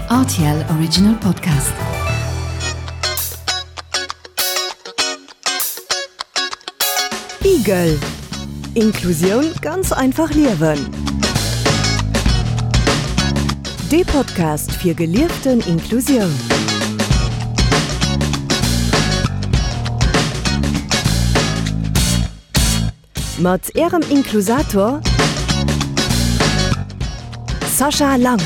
Rtl Original Podcast. Igel. Inklusioun ganz einfach liewen. Dee Podcast fir gelieften Inklusioun. Mat Ärem Inklusator Sascha Lang.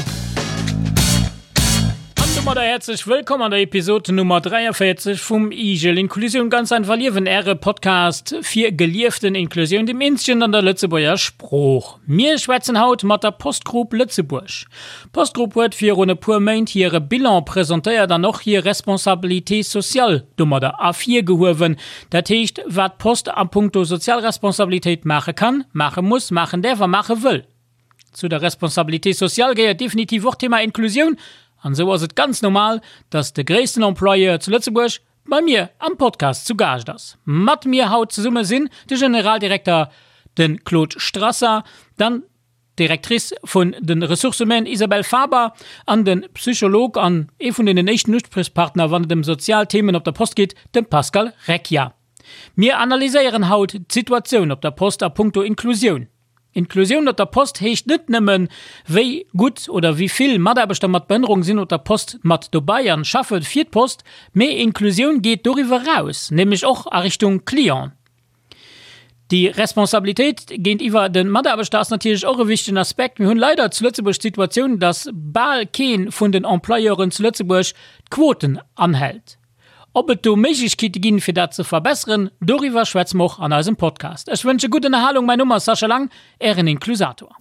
An domadder häerzlech wëllkomm an der Episod Nummer 43 vum Igel Inklusioun ganz einfach liewen, Äre Podcast fir gelieften Inklusioun, dem eenzegen an der Lëtzebuerger Sprooch. Mir schwätzen haut mat der Post Group Lëtzebuerg. D'Post Group huet virun e puer Méint hire Bilan presentéiert an och hir Responsabilité sociale domadder ervirgehuewen. Dat heescht, wat d'Post a puncto sozial Responsabilitéit maache kann, maache muss, maachen däerf a maache wëll. Zu der Responsabilité sociale gehéiert definitiv och d'Thema Inklusioun an esou ass et ganz normal, dass de gréissten Employeur zu Lëtzebuerg bei mir am Podcast zu Gaascht ass. Mat mir haut zesumme sinn de Generaldirekter, de Claude Strasser, dann d'Directrice vun de Ressources humaines Isabelle Faber an de Psycholog an ee vun deenen éischten Uspriechpartner wann et ëm sozial Themen op der Post geet, de Pascal Recchia. Mir analyséieren haut d'Situatioun op der Post a punkto Inklusioun. Inklusioun op der Post heescht net nëmmen, wéi gutt oder wéi vill Mataarbechter mat Behënnerung sinn op der Post mat dobei an schaffe fir d'Post, mee Inklusioun geet doriwwer eraus, nämlech och a Richtung Client. Déi Responsabilitéit géintiwwer de Mataarbechter ass natierlech och e wichtegen Aspekt. Mir hunn leider zu Lëtzebuerg d'Situatioun, dass bal kee vun den Employeuren zu Lëtzebuerg d'Quoten anhält. Ob et do Méiglechkeete ginn, fir dat ze verbesseren, doriwwer schwätze mer och an eisem Podcast. Ech wënsche gutt Ënnerhalung. Mäin Numm ass Sascha Lang, Ären Inklusator.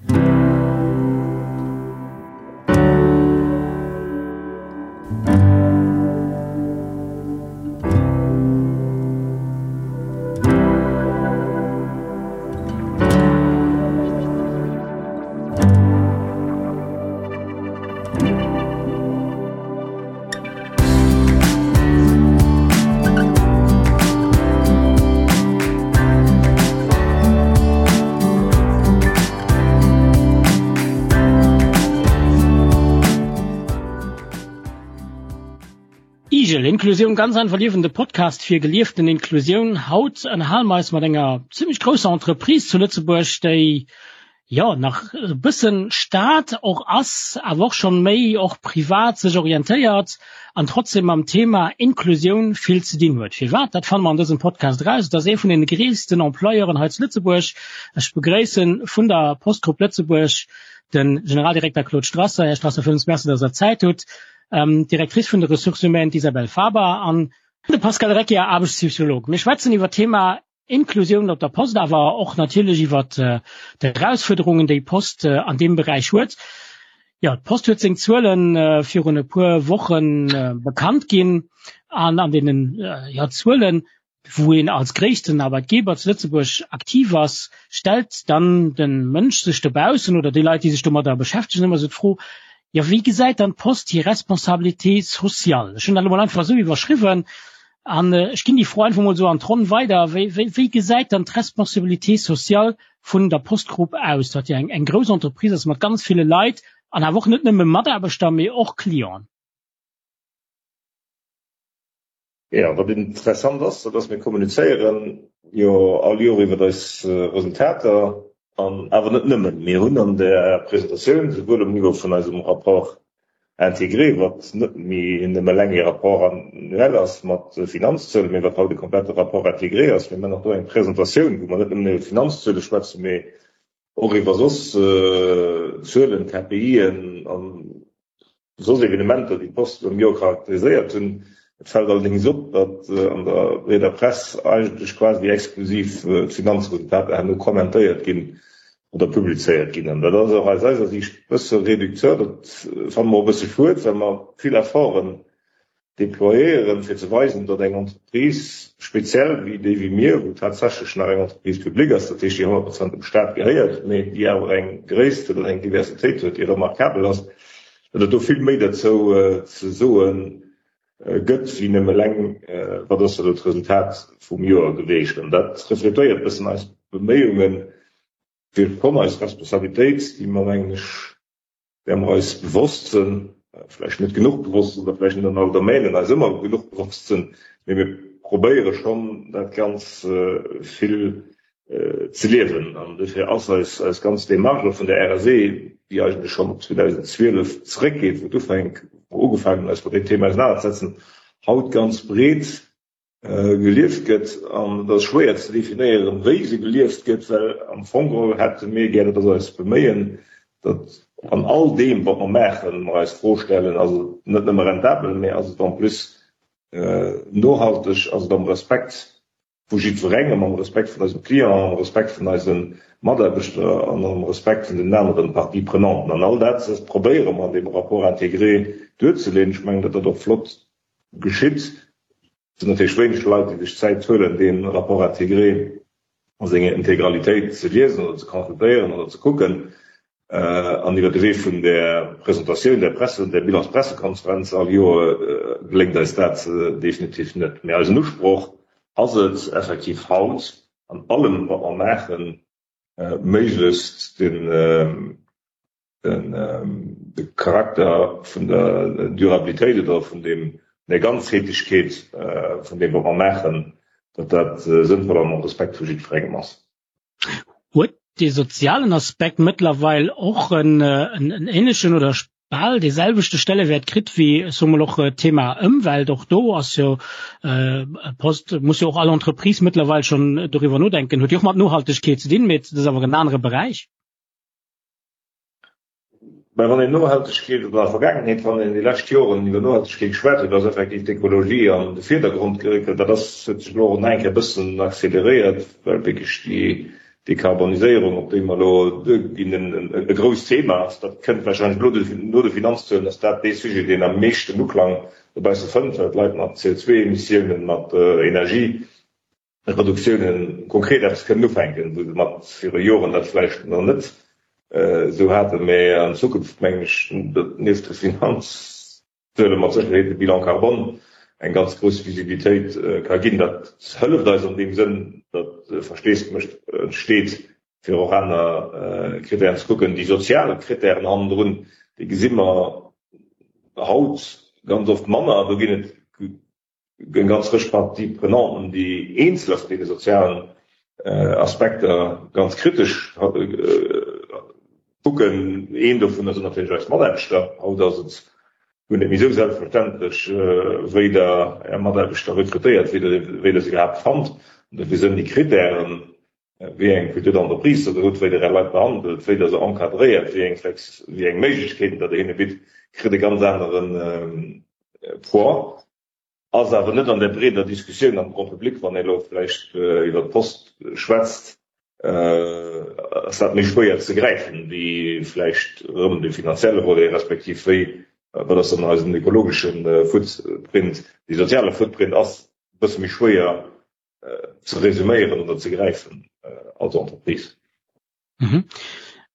Igel, Inklusioun ganz einfach liewen, de Podcast fir gelieften Inklusioun. Haut ënnerhale mer eis mat enger zimmlech grousser Entreprise zu Lëtzebuerg, déi jo nach e bëssen Staat och ass, awer och schonn méi och privat sech orientéiert an trotzdem mam Thema Inklusioun vill ze dinn huet. Firwat? Dat fanne mer an dësem Podcast eraus. Et ass ee vun den gréissten Employeuren hei zu Lëtzebuerg. Ech begréissen vun der Post Group Lëtzebuerg de Generaldirekter Claude Strasser. Här Strasser, villmools Merci, dass Der Zäit hutt. D'Directrice vun de Ressources humaines, d'Isabelle Faber an de Pascal Recchia, Aarbechtspsycholog. Mir schwätzen iwwer d'Thema Inklusioun op der Post, awer och natierlech iwwer d'Erausfuerderungen, déi d'Post an deem Beräich huet. Jo, d'Post huet seng Zuele virun e puer Woche bekannt ginn an an deenen, jo, Zuelen, wou een als gréissten Arbeitgeber zu Lëtzebuerg aktiv ass, stellt dann de Mënsch sech dobaussen oder déi Leit, déi sech domadder beschäftegen, ëmmer esou d'Fro, jo, wéi gesäit dann d'Post hir Responsabilité sociale? Ech hunn dat elo mol einfach esou iwwerschriwwen. An ech ginn déi Fro einfach mol esou an d'Ronn weider, Wéi, wéi, wéi gesäit dann d'Responsabilité sociale vun der Post Group aus, wat jo eng, eng grouss Entreprise ass mat ganz ville Leit an awer och net nëmme Mataarbechter, mee och Clienten? Jo, wat interessant ass, dat ass, mir kommunizéieren jo all Joer iwwer eis Resultater an awer net nëmmen. Mir hunn an där Presentatioun, souwuel um Niveau vun eisem Rapport intégré, wat net méi nëmme eleng ee Rapport annuel ass mat Finanzzuelen, mee wat haut e komplette Rapport intégré ass. Mir maachen och do eng Presentatioun, wou mer net nëmmen iwwer d'Finanzzuele schwätzen, mee och iwwer soss Zuelen, KPIen an soss Evenementer, déi d'Post am Joer charakteriséiert hunn. Et fält allerdéngs op, datt an der breeder Press eigentlech quasi exklusiv d'Finanzresultater herno kommentéiert ginn oder publizéiert ginn. An dat ass och aus eiser Siicht e bësse réducteur. Dat fanne mer och e bësse schued, well mer vill Efforten déployéieren, fir ze weisen, datt eng Entreprise, speziell wéi déi wéi mir, wou tatsächlech nach eng Entreprise publique ass, dat heescht déi 100 Prozent dem Staat gehéiert, mee déi awer eng Gréisst huet an eng Diversitéit huet, déi remarkabel ass, datt et do vill méi derzou ze soe gëtt wéi nëmme eleng, wat ass elo d'Resultat vum Joer geweecht. An dat refletéiert e bëssen eis Beméiungen, fir schonn eis Responsabilitéit, déi mer, mengen ech, där mer eis bewosst sinn. vläicht net genuch bewosst oder vläicht net an all Domänen eis ëmmer genuch bewosst sinn, mee mir probéiere schonn dat ganz vill ze liewen. An dofir ass eis eis ganz Démarche vun der RSE, déi eigentlech schonn op 2012 zeréckgeet, wou et ufänk, wou ugefaangen hunn eis mat deem Thema ausenanerzesetzen, haut ganz breet gelieft gëtt. An et ass schwéier ze definéieren, wéi se gelieft gëtt, well am Fong geholl hätte mir gär, dat ass eist Beméien, datt an all deem, wat mer maachen, mer eis d'Fro stellen, Ass et net nëmme rentabel, mä ass et en plus nohalteg, ass et am Respekt vu jiddwerengem, am Respekt vun eisem Client, am Respekt vun eise Mataarbechter an am Respekt vun den aneren Parties prenanten? An all dat probéiere mer an deem Rapport intégré duerzeleeën. Ech mengen, datt dat och flott geschitt. Et sinn natierlech wéineg Leit, déi sech d'Zäit huelen, dee Rapport intégré a senger Integralitéit ze liesen oder ze consultéieren oder ze kucken. An iwwer de Wee vun där Presentatioun, där Presse, där Bilanspressekonferenz all Joer geléngt eis dat definitiv net. Mee eisen Usproch ass et effektiv haut an allem, wat mer maachen, méiglechst den, de Charakter vun der Durabilitéit oder vun deem, der Ganzheetlechkeet vun deem, wat mer maachen, datt dat sënnvoll an am Respekt vu jiddwerengem ass. Huet dee sozialen Aspekt mëttlerweil och en änlechen oder bal dee selwechte Stellewäert kritt wéi, ech soe mol, och d'Thema Ëmwelt? Och do ass jo Post, muss jo och all Entreprise mëttlerweil schonn doriwwer nodenken, huet jo och mat Nohaltegkeet ze dinn, mee et ass awer en anere Beräich. Mä wann een Nohaltegkeet, oder an der Vergaangenheet, wann een déi lescht Joren iwwer Nohaltegkeet geschwat huet, ass effektiv d'Ekologie an de Virdergrond geréckelt. Dat ass, huet sech elo och nach eng Kéier e bëssen acceleréiert, well wierklech déi Dekarboniséierung, op déi mer elo duerginn, e grousst Thema ass. Dat kënnt warscheinlech elo no de Finanzzuelen, ass dat dee Sujet, deen am meeschten Uklang dobausse fënnt, well d'Leit mat CO2-Emissiounen, mat Energie, Reduktiounen konkret eppes kënnen ufänken, wou se mat viru Joren dat vläicht nach net esou haten. Mä an Zukunft mengen ech, datt nieft de Finanzzuele mat Sécherheet de Bilan carbone eng ganz grouss Visibilitéit ka ginn. Dat hëlleft eis an deem Sënn, datt Versteesdemech entsteet, fir och aner Krittären ze kucken. Déi sozial Krittären hannendrun, déi gesi mer haut ganz oft manner. Do ginn et Eng ganz Rëtsch Parties prenanten, déi eenzeler vun deene sozialen Aspekter ganz kritesch kucken. Een dovunner sinn natierlech eis Mataarbechter. Haut ass et guer net méi esou selbstverständlech, wéi Der Är Mataarbechter rekrutéiert, wéi Der se iwwerhaapt fannt. An dofir sinn déi Krittären, wéi eng Culture d'entreprise Der hutt, wéi Der Är Leit behandelt, wéi Der se encadréiert, wéi eng Flex, wéi eng Méiglechkeeten Der hinne bitt, kritt e ganz anere Poids. Ass awer net an der breeder Diskussioun am Grand public, wann ee elo vläicht iwwer d'Post schwätzt, ass dat méi schwéier ze gräifen, wéi vläicht erëm de finanzielle Volet, respektiv wéi, wat ass dann eisen ökologesche Footprint. Dee soziale Footprint ass e bësse méi schwéier ze resuméieren oder ze gräifen als Entreprise. Mhm.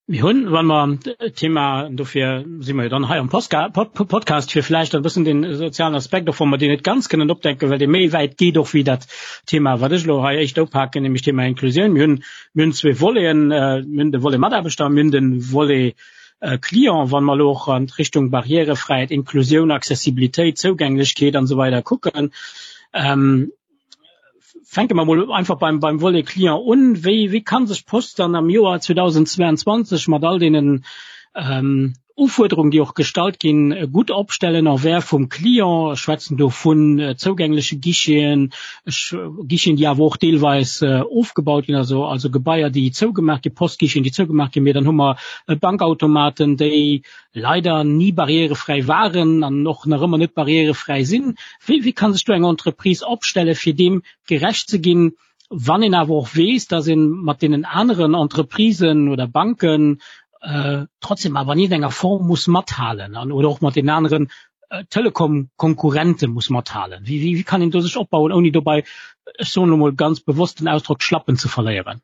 Mir hunn, wann mer d'Thema, dofir si mer jo dann hei am Podcast, fir vläicht e bëssen den sozialen Aspekt, och wa mer deen net ganz kënnen opdecken, well dee méi wäit geet och wéi dat Thema, wat ech elo hei éischter upaken, nämlech d'Thema Inklusioun. Mir hunn, mir hunn zwee Voleten, mir hunn de Volet Mataarbechter a mir hunn de Volet Client. Wa mer elo och an d'Richtung Barrièrefräiheet, Inklusioun, Accessibilitéit, Zougänglechkeet an esou weider kucken, Fänke mer mol einfach beim, beim Volet Client un. Wéi, wéi kann sech d'Post dann am Joer 2022 mat all deenen ähm, Ufuerderungen, déi och gestallt ginn, gutt opstellen envers vum Client? Ech schwätzen do vun äh, zougängleche Guicheten, ech, Guicheten, déi awer och deelweis äh, ofgebaut ginn, also, also Gebaier, déi zougemaach ginn, Postguicheten, déi zougemaach ginn. Mee dann hu mer äh, Bankautomaten, déi leider ni barrierefräi waren an och nach ëmmer net barrierefräi sinn. Wéi, wéi kann sech do eng Entreprise opstellen, fir deem gerecht ze ginn, wann een awer och weess, dass ee mat deenen aneren Entreprisen oder Banken äh, trotzdem awer an iergendenger Form muss mathalen an oder och mat den aneren äh, Telekom-Konkurrente muss mathalen? Wéi, wéi, wéi kann een do sech opbauen, ouni dobäi, ech soen elo mol ganz bewosst den Ausdrock, d'Schlappen ze verléieren?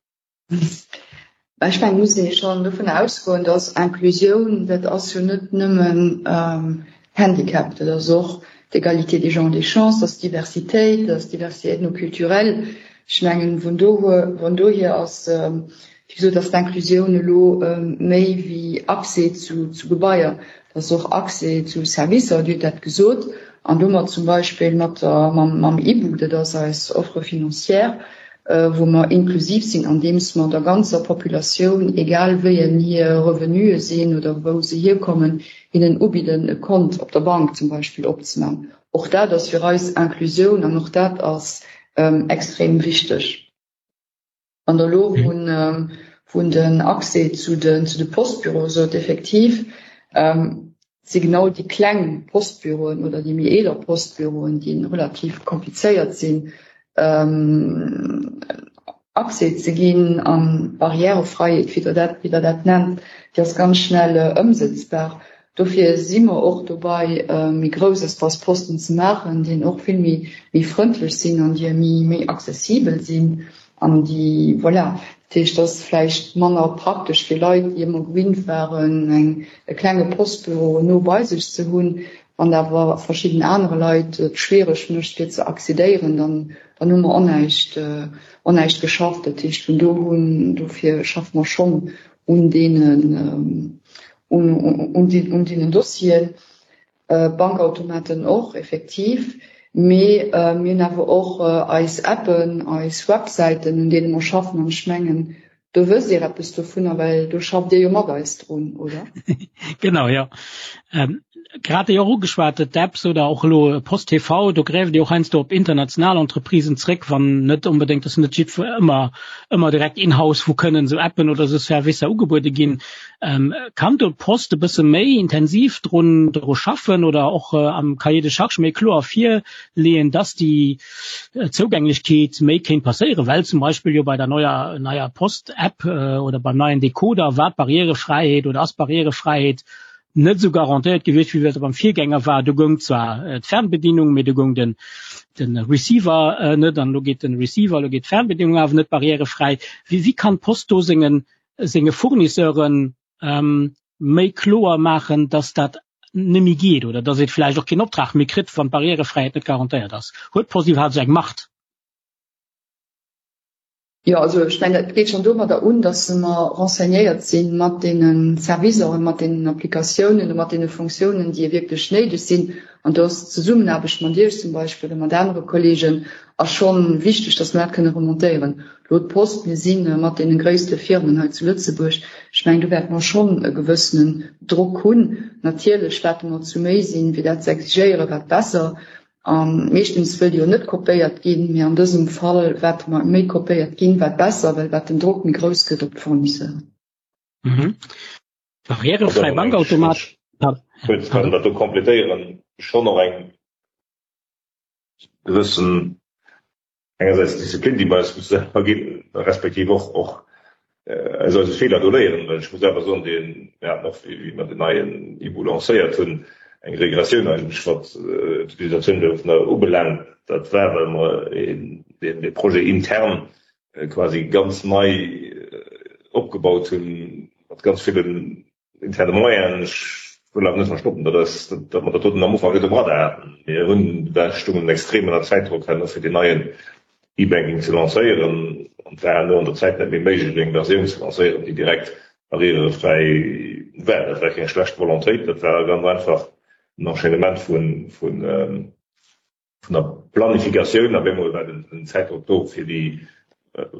Ech mengen, et muss ee schonn dovun ausgoen, dass Inclusioun, dat ass jo net nëmmen Handicap, dat ass och d'Égalité des genres des chances, dat ass d'Diversitéit, dat ass d'Diversité ethnoculturelle. Ech mengen, vun dohier ass. Wéi gesot ass d'Inclusioun elo méi wéi Accès zu Gebaier, dat ass och Accès zu Servicer, Dir hutt dat gesot, an domat zum Beispill mat der, mam IBU, dat ass eis Offre financière, wou mer inklusiv sinn, andeems mer der ganzer Populatioun, egal wéi en hir Revenue sinn oder wou se hierkommen, hinnen ubidden, e Kont op der Bank zum Beispill opzemaachen. Och dat ass fir eis Inclusioun an och dat ass extrem wichteg. An der elo vun den Accès zu de zu de Postbüroe sot, effektiv si genau déi kleng Postbüroen oder déi méi eeler Postbüroen, déi relativ komplizéiert sinn, Accès ze ginn an d'Barrièrefreiheet, wéi Der dat, wéi Der dat nennt, déi ass ganz schnell ëmsëtzbar. Dofir si mer och dobei, méi grouss Espace Posten ze maachen, déi och vill méi, méi frëndlech sinn an déi méi, méi accessibel sinn an déi, voilà. Dat heescht, dat ass vläicht manner praktesch fir Leit, déi ëmmer gewinnt waren, eng, e klenge Postbüro no bei sech ze hunn. Wann dat awer verschidden anere Leit et schwiereg mécht, fir ze accédéieren, dann, dann hu mer onnäischt, onnäischt geschafft. Dat heescht, vun do hunn, dofir schaffe mer schonn un deenen, un, un, un deenen Dossieren. Bankautomaten och, effektiv. Mee mir hunn awer och eis Appen, eis Websäiten, un deene mer schaffen. An ech mengen, Do wësst Dir eppes dovunner, well do schafft Dir jo mat eis drun, oder? Genau, jo. Grad déi och ugeschwat, d'Apps oder och elo Post TV, do gräift Dir och heiansdo op international Entreprisen zréck, wann net onbedéngt, dass net jiddwer ëmmer, ëmmer direkt in-house, wou kënnen esou Appen oder esou Servicer ugebuede ginn. Kann do d'Post e bësse méi intensiv drun, dru schaffen oder och am Cahier de charges méi kloer virleeën, dass déi Zougänglechkeet méi kéint passéieren, well zum Beispill jo bei der neuer neier Post-App oder beim neien Decoder war d'Barrièrefräiheet oder ass d'Barrièrefräiheet net esou garantéiert gewiescht, wéi dat beim Virgänger war. Do goung zwar d'Fernbedienung, mee do goung den den Receiver net an elo geet den Receiver, elo geet d'Fernbedienung awer net barrièrefräi. Wéi wéi kann d'Post do sengen senge Fournisseuren méi kloer maachen, dass dat net méi geet oder dass et vläicht och keen Optrag méi kritt, wann d'Barrièrefräiheet net garantéiert ass? Huet d'Post iwwerhaapt esou eng Macht? Jo, also ech mengen, et geet schonn domadder un, dass mer renseignéiert si mat deene Servicer, mat deenen Applikatiounen, mat deene Fonctiounen, déi wierklech néideg sinn. An do ass d'Zesummenaarbecht mat Iech zum Beispill oder mat anere Kolleegen ass schonn wichteg, dass mer dat kënne remontéieren. Elo d'Post, mir si mat deene gréisste Firmen hei zu Lëtzebuerg. Ech mengen, do wäerte mer schonn e gewëssenen Drock hunn. Natierlech, wat mer zu méi sinn, fir dat ze exigéieren, wat besser. A meeschtens wëllt jo net kopéiert ginn, mee an dësem Fall, wat mer méi kopéiert ginn, wat besser, well wat den Drock méi grouss gëtt op d'Fournisseuren. Barrièrefräi Bankautomat. Kuerz kann dat do complétéieren, schonn och eng gewëssen engersäits d'Disziplin, déi mer eis musse selwer ginn, respektiv och och aus eise Feeler do léieren. Well ech muss awer soen, dee mir haten och, wéi mer den neien IBU lancéiert hunn, eng Regressioun eigentlech, wat d'Utilisatioun dovunner ubelaangt. Dat war, well mer dee Projet intern quasi ganz nei opgebaut hunn, mat ganz villen interne Moyenen. Ech wëll awer net verstoppen, datt eis, datt mer dat doten am Ufank net um Radar haten. Mir hunn, da stungen extrem ënner Zäitdrock herno fir deen neien E-Banking ze lancéieren an et war herno an der Zäit net méi méiglech eng Versioun ze lancéieren, déi direkt barrièrefräi war. Dat war keng schlecht Volontéit, dat war ganz einfach en Enchaînement vun, vun, vun der Planifikatioun op eemol war den Zäitdrock do, fir déi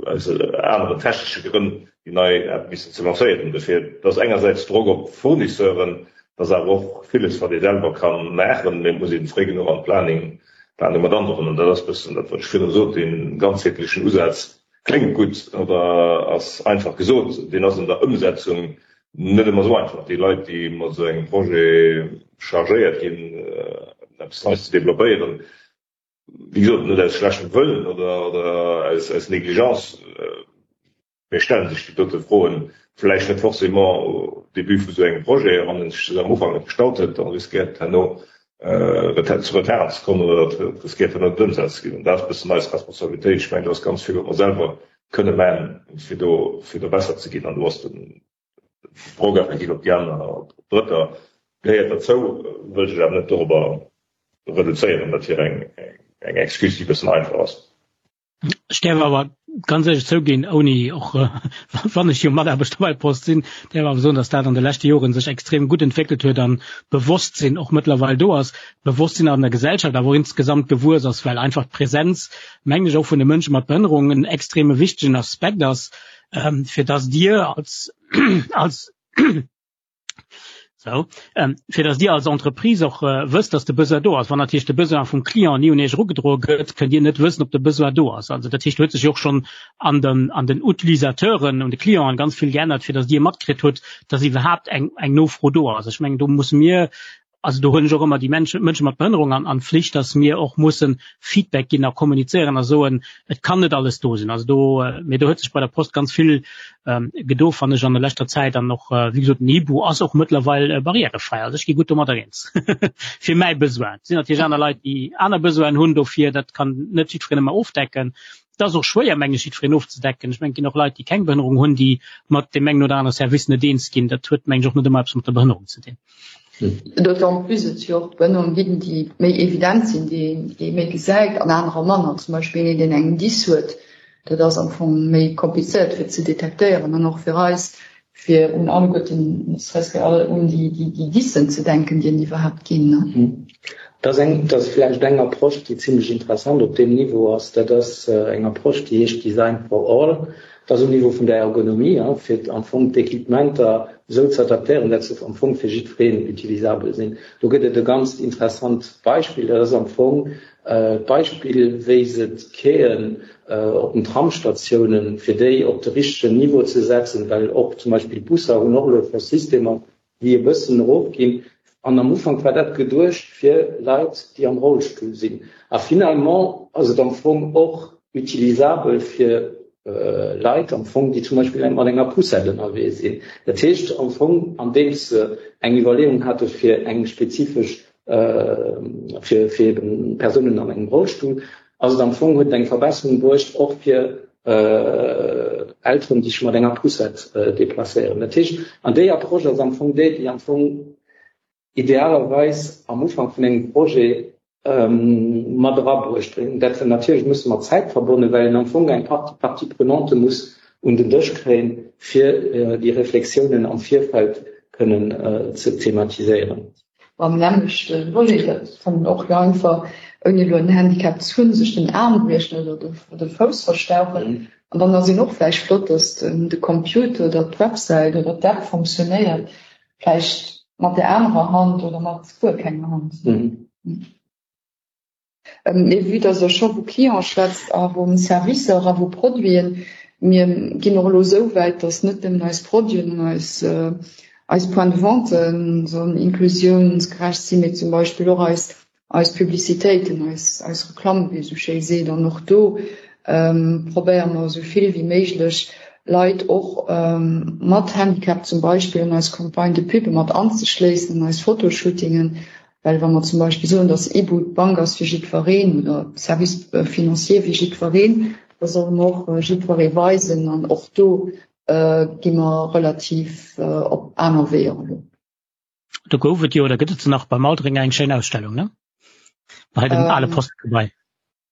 aus aneren technesche Grënn déi nei App missen ze lancéieren. Dofir, et ass engersäits Drock op d'Fournisseuren, et ass awer och villes, wat ee selwer ka maachen, mee et muss ee fréi genuch an d'Planning Planung mat androen. An dat ass e bëssen dat, wat ech virdru sot, dee ganzheetlechen Usaz kléngt gutt oder ass einfach gesot, deen ass an der Ëmsetzung net ëmmer esou einfach. Déi Leit, déi mat esou engem Projet chargéiert ginn, eppes Neies ze developpéieren, wéi gesot, net aus schlechtem Wëllen oder aus Négligence, mee stelle sech déi dote Froen vläicht net forcément au début vu esou engem Projet. A wann ee sech se am Ufank net gestallt huet, da riskéiert et herno zu Retarden ze kommen oder et riskéiert herno net ëmsat ze ginn. An dat ass e bëssen eis Responsabilitéit. Ech mengen, do ass ganz vill, wat mer selwer kënne maachen, fir do besser ze ginn. An do ass den Drock effektiv op déi aner, op Drëtter gehéiert derzou, wëllt ech awer net dorobber reduzéieren. Dat wier eng Excuse, déi e bëssen einfach ass. Ech däerf awer. ganz éierlech zouginn, ouni och wann ech jo Mataarbechter bei Post sinn, däerf awer soen, datt dat an de leschte Joren sech extrem gutt entwéckelt huet an d'Bewosstsinn och mëttlerweil do ass, d'Bewosstsinn an der Gesellschaft awer och insgesamt gewuess ass, well einfach d'Präsenz, mengen ech, och vun de Mënsche mat Behënnerung en extreme wichtegen Aspekt ass, fir datt Dir als als So, ähm, fir dass Dir als Entreprise och äh, wësst, dass de Besoin do ass. Wann natierlech de Besoin vum Client ni un Iech erugedroe gëtt, kënnt Dir net wëssen, ob de Besoin do ass. Also dat heescht, huet sech jo och schonn an den, an den Utilisateuren, un de Clienten ganz vill geännert, fir dass Dir matkritt hutt, dass iwwerhaapt eng, eng Nofro do ass. Ech mengen, do musse mir also do hunn ech och ëmmer déi Menschen, Mënsche mat Behënnerung an, an Flicht, dass mir och mussen Feedback ginn a kommunizéieren a soen, et kann net alles do sinn. Also do, mee do huet sech bei der Post ganz vill ähm, gedo, fannen ech, an der leschter Zäit an och, äh, wéi gesot, den Hibou ass och mëttlerweil äh, barrierefrei. Also ech gi gutt domadder eens. Fir mäi Besoin. Et sinn natierlech aner Leit, déi aner Besoinen hunn dofir, dat kann net jiddwereen ëmmer ofdecken. Et ass och schwéier, mengen ech, jiddwereen ofzedecken. Ech mengen, et ginn och Leit, déi keng Behënnerung hunn, déi mat deem engen oder anere Service net eens ginn. Dat huet, mengen ech, och net ëmmer eppes mat der Behënnerung ze dinn. D'autant plus et jo och Behënnerungen ginn, déi méi evident sinn, déi ee méi gesäit an anerer manner. Zum Beispill een, deen eng Dys huet, dat ass am Fong méi komplizéiert fir ze detektéieren an och fir eis, fir un alleguerten, ne serait-ce que un déi Dyssen ze denken, déi et iwwerhaapt ginn. Dat ass eng, dat ass vläicht eng Approche, déi zimlech interessant op deem Niveau ass. Dat ass eng Approche, déi heescht Design for all. Dat ass um Niveau vun der Ergonomie, fir am Fong d'Equipementer esou ze adaptéieren, dat se am Fong fir jiddwereen utilisabel sinn. Do gëtt et e ganzt interessant Beispill, dat ass am Fong d'Beispill, wéi se d'Quaien op den Tramsstatiounen, fir déi op de richtegen Niveau ze setzen, well och zum Beispill d'Busser hunn och elo scho Systemer, déi e bëssen erofginn. An am Ufank war dat geduecht fir Leit, déi am Rollstull sinn. A finalement ass et am Fong och utilisabel fir Leit am Fong, déi zum Beispill mat enger Poussette ënnerwee sinn. Dat heescht am Fong, andeems se eng Iwwerleeung hate fir eng spezifesch, fir fir eben Persounen an engem Rollstull, ass et am Fong, huet et eng Verbesserung bruecht och fir Elteren, déi sech mat enger Poussette deplacéieren. Dat heescht, an déi Approche ass am Fong déi, déi am Fong idealerweis am Ufank vun engem Projet mat erabruecht gëtt. Dat natierlech musse mat Zäit verbonnen, well een am Fong eng Partie Parties prenantes muss un den Dësch kréien, fir déi Reflexiounen am Virfeld kënnen ze thematiséieren. Beim nämmlechte Volet, dat kann een och jo einfach, ouni elo en Handicap ze hunn, sech den Aarm briechen oder de Fouss verstauchen. An dann ass een och vläicht flott, dass de Computer oder d'Websäit oder d'App funktionéiert, vläicht mat der anerer Hand oder mat guer kenger Hand. Mee vue dass Der scho vu Cliente schwätzt a vu Servicer a vu Produiten, mir ginn och elo esou wäit, dass net nëmmen eis Produiten an eis, eis Points de vente sollen inklusiounsgerecht sinn, mee zum Beispill och eis, eis Publicitéiten, eis, eis Reklamm, wéi ee sou schéi seet. An och do probéiere mer esou vill wéi méiglech Leit och mat Handicap zum Beispill an eis Campagne de pub mat anzeschléissen, an eis Fotoshootingen, Well wa mer zum Beispill soen, datt Ibu d'Bank ass fir jiddwereen oder Service financier fir jiddwereen, da solle mer och jiddweree weisen. An och do gi mer relativ op aner Weeër elo. Do gouf et jo, oder gëtt et se nach, beim Aldringer eng schéin Ausstellung, ne? Bei dem ale Postgebai.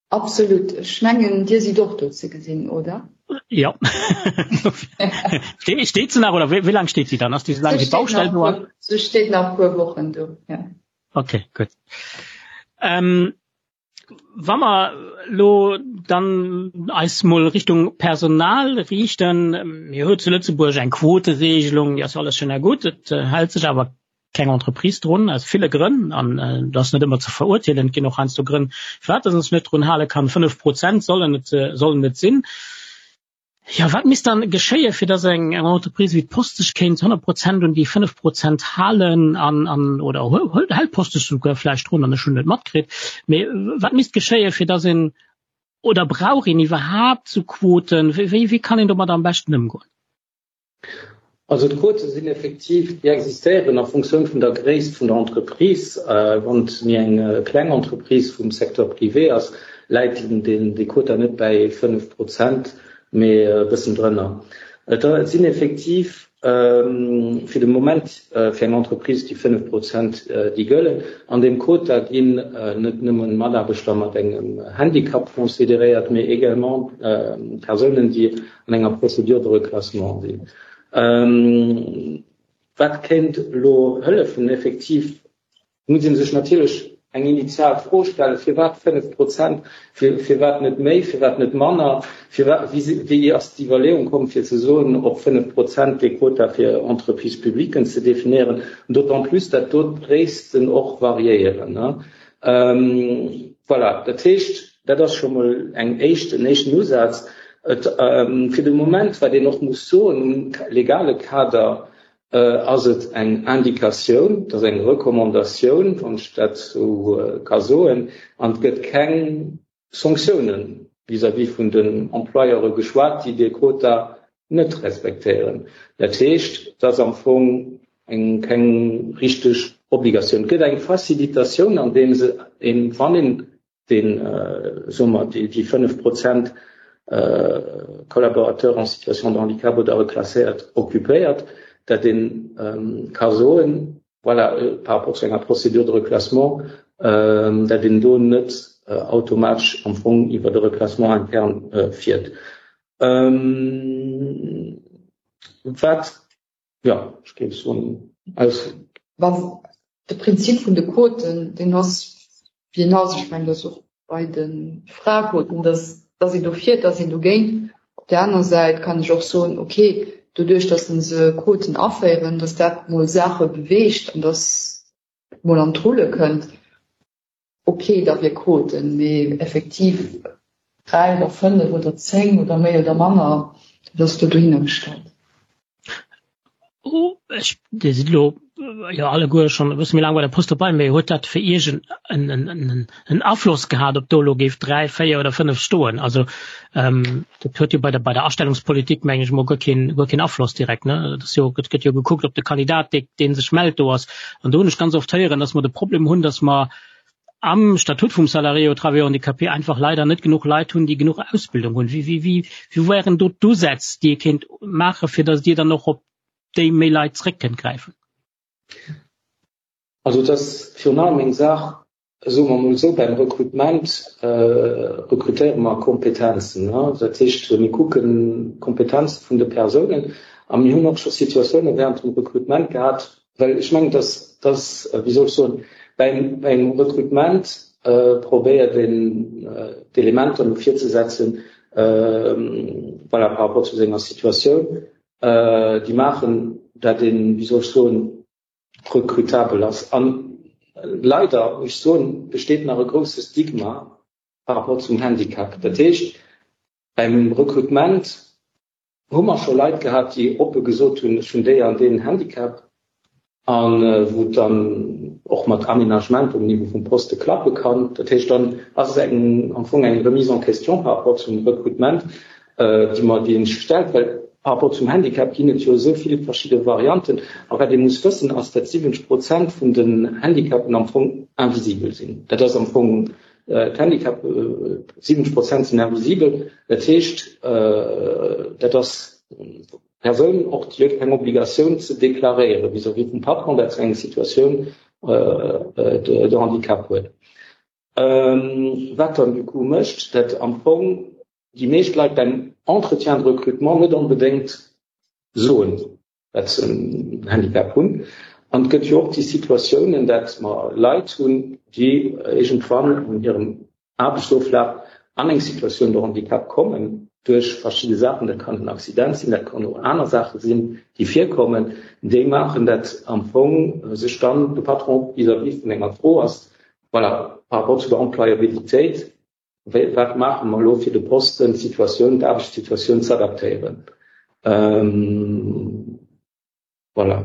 Absolut. Ech mengen, Dir sidd och do ze gesinn, oder? Jo. Steet se nach, oder wéi laang steet si dann? Ass déi esou laang wéi d'Baustell do ass? Se steet nach e puer Wochen do, jo. Okay, gutt. Ähm, wa mer elo dann eis mol Richtung Personal riichten, Mir hu zu Lëtzebuerg eng Quoteregelung, déi ass jo alles schön a gutt, et hält sech awer keng Entreprise drun, aus ville Grënn, an dat ass net ëmmer ze verurteelen, et ginn och heiansdo Grënn, firwat dass een sech net drun hale kann. 5 Prozent sollen et, sollen et sinn. Jo, wat misst dann geschéien, fir dass eng Entreprise wéi d'Post sech kéint 100 Prozent un déi 5 Prozent halen an, an oder hält d'Post sech souguer vläicht drun an ech hunn et net matkritt, mee wat misst geschéien, fir dass een, oder brauch een iwwerhaapt esou Quoten, wéi, wéi kann een domat am beschten ëmgoen? Also d'Quote sinn effektiv, déi existéieren a Funktioun vun der Gréisst vun der Entreprise. Wann et méi eng kleng Entreprise vum Secteur privé ass, läit dee Quota net bäi 5 Prozent, mee e bëssen drënner. Et sinn effektiv. Fir de Moment fir eng Entreprise déi 5 Prozent déi gëllen. An deem Quota ginn net nëmmen Mataarbechter mat engem Handicap consideréiert, mee également Persounen, déi an enger Procédure de reclassement sinn. Wat kéint elo hëllefen? Effektiv muss ee sech natierlech eng initial Fro stellen, Firwat 5 Prozent? Firwat net méi? Firwat net manner? Firwat, wéi ass d'Iwwerleeung komm, fir ze soen, op 5 Prozent dee Quota fir Entreprises publiquen ze definéieren? D'autant plus, dat do d'Gréissten och variéieren. Voilà, dat heescht, dat ass scho mol eng éischt, en éischten Usaz. Et, fir de Moment, wat een och muss soen, um legale Kader Ass et eng Indikatioun, et ass eng Recommandatioun, wann ech dat esou ka soen, an et gëtt keng Sanktiounen vis-à-vis vun den Employeure geschwat, déi dee Quota net respektéieren. Dat heescht, et ass am Fong eng keng richteg Obligatioun. Et gëtt eng Facilitatioun, andeems een, wann een deen, soe mer, déi 5 Prozent Collaborateurs en situation de handicap oder reclasséiert occupéiert, dat ee ka soen, voilà, par rapport zu enger Procédure de reclassement, dat een do net automatesch am Fong iwwer de Reclassement interne fiert. Wat Jo, ech géif soen, aus. Wann de Prinzip vun de Quoten, deen ass wéi en ass, ech mengen, dat ass och bei de Fraequoten, dass dass een dofir, dass een dogéint. Op där aner Säit kann ech och soen, okay, doduerch dass se Quoten aféieren, dass dat mol Saache beweegt an dass et mol an d'Rulle kënnt. Ok, da wier Quoten, mee effektiv 3 oder 5 oder 10 oder méi oder manner, dat ass do dohinner gestallt. Oh, ech, Dir sidd elo jo alleguer schonn e bësse méi laang bei der Post dobei, mee huet dat fir Iech en, en, en, en Afloss gehat, ob do elo géif 3, 4 oder 5 stoen? Also ähm, dat huet jo bei der, bei der Astellungspolitik, meng ech mol, guer keen, guer keen Afloss direkt, ne? Dat ass jo, gëtt, gëtt jo gekuckt, ob de Kandidat, dee, dee sech mellt, do ass. An do hunn ech ganz oft héieren, dass mer de Problem hunn, dass mer am Statut vum Salarié au travailleur handicapé einfach leider net genuch Leit hunn, déi genuch Ausbildung hunn. Wéi, wéi, wéi, wéi wären do d'Usätz, déi ee kéint maachen, fir dass Dir dann och op déi méi Leit zréck kënnt gräifen? Also et ass virun allem eng Saach, soe mer emol esou, beim Rekrutement rekrutéiere mer Kompetenzen. Dat heescht, mir kucken d'Kompetenze vun de Persounen a mir hunn och scho Situatioune während dem Rekrutement gehat, well ech mengen, dass, dass, wéi soll ech soen, beim, beim Rekrutement probéiert een d'Elementer no vir ze setzen, voilà, par rapport zu senger Situatioun, déi maachen, dat een, wéi soll ech soen, rekrutabel ass. An leider, muss ech soen, besteet nach e grousse Stigma par rapport zum Handicap. Dat heescht, beim Rekrutement hu mer scho Leit gehat, déi oppe gesot hunn, ech hunn déi an deen Handicap, a wou et dann och mat Aménagement um Niveau vum Poste klappe kann. Dat heescht, dann ass et eng, am Fong eng Remise en question par rapport zum Rekrutement, déi mer, déi een sech stellt, well par rapport zum Handicap ginn et jo esou vill verschidde Varianten. A wat ee muss wëssen, ass, datt 70 Prozent vun den Handicapen am Fong invisibel sinn. Dat ass am Fong d'Handicap, 70 Prozent sinn invisibel. Dat heescht, dat ass d'Persoun och, déi huet keng Obligatioun ze deklaréieren vis-à-vis vum Patron, datt se eng Situatioun de handicap huet. Wat dann du coup mécht, datt am Fong déi meescht Leit beim Entretien de recrutement net onbedéngt soen, dat se en Handicap hunn. An et gëtt jo och déi Situatiounen, dat mer Leit hunn, déi iergendwann an hirem Aarbechtsoflaf an eng Situation de handicap kommen duerch verschidde Saachen, dat kann en Accident sinn, dat kann och aner Saache sinn, déi virkommen, déi maachen, dat am Fong sech dann de Patron vis-à-vis vun enger Fro ass, voilà, par rapport zu der Employabilitéit, Wéi, wat maache mer elo, fir de Posten, d'Situatioun, d'Aarbechtssituatioun z'adaptéieren? Voilà.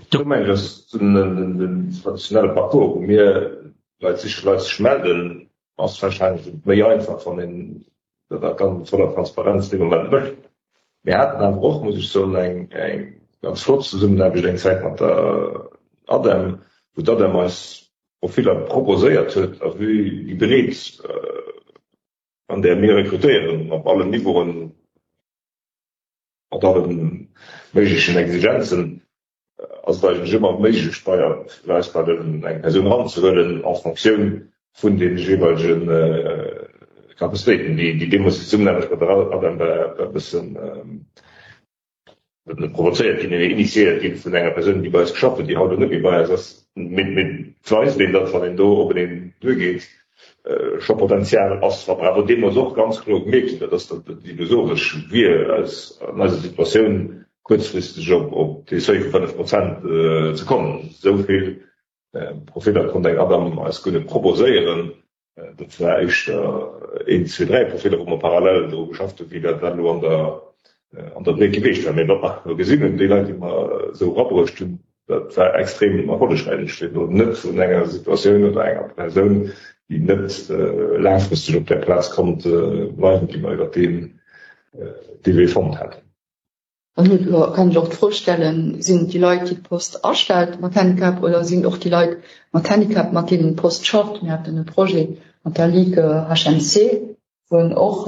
Do mengen ech, ass den traditionelle Parcours, wou mir Leit sichen, Leit sech melden, ass warscheinlech méi einfach, wann een dat a voller Transparenz dee Moment mécht. Mir haten awer och, muss ech soen, eng ganz flott Zesummenaarbecht eng Zäit mat der ADEM, wou d'ADEM eis Profiller proposéiert huet a vue déi Breet an där mir rekrutéieren op allen Niveauen. Mat alle méiglechen Exigenzen ass et eigentlech ëmmer méiglech bei eis bei den eng Persoun eranzehuelen en Fonctioun vun de jeeweilege Capacitéiten, déi déi deemools déi Zesummenaarbecht mat der ADEM war e bëssen net provozéiert ginn, mee initiéiert ginn vun enger Persoun, déi bei eis geschafft huet, déi haut elo net méi bei eis ass. Mee et weist een, datt wann een do openeen duergeet, scho Potenzial ass. Wat mer awer deemools och ganz kloer gemierkt hunn, dat ass, datt et illusoresch wier, aus an eiser Situatioun kuerzfristeg op dee Seuil vu 5 Prozent ze kommen. Esou vill Profiller konnt eng ADAM eis guer net proposéieren. Dat war éischter een, zwee, dräi Profiller, wou mer parallel dru geschafft hunn, wéi dat elo an der an der Breet geweecht war. Mee wat mer elo gesinn hunn, déi Leit, déi mer esou erabruecht hunn, dat war extrem erfollegräich. Ech schwätzen elo net vun enger Situatioun oder enger Persoun, déi net laangfristeg op där Plaz konnt bleiwen, déi mer iwwer deen dee Wee fonnt haten. Dann huet elo, kann ech och d'Fro stellen, Sinn et déi Leit, déi d'Post astellt mat Handicap oder sinn et och déi Leit mat Handicap, mat deenen d'Post schafft? Mir haten e Projet mat der Ligue HMC, wou och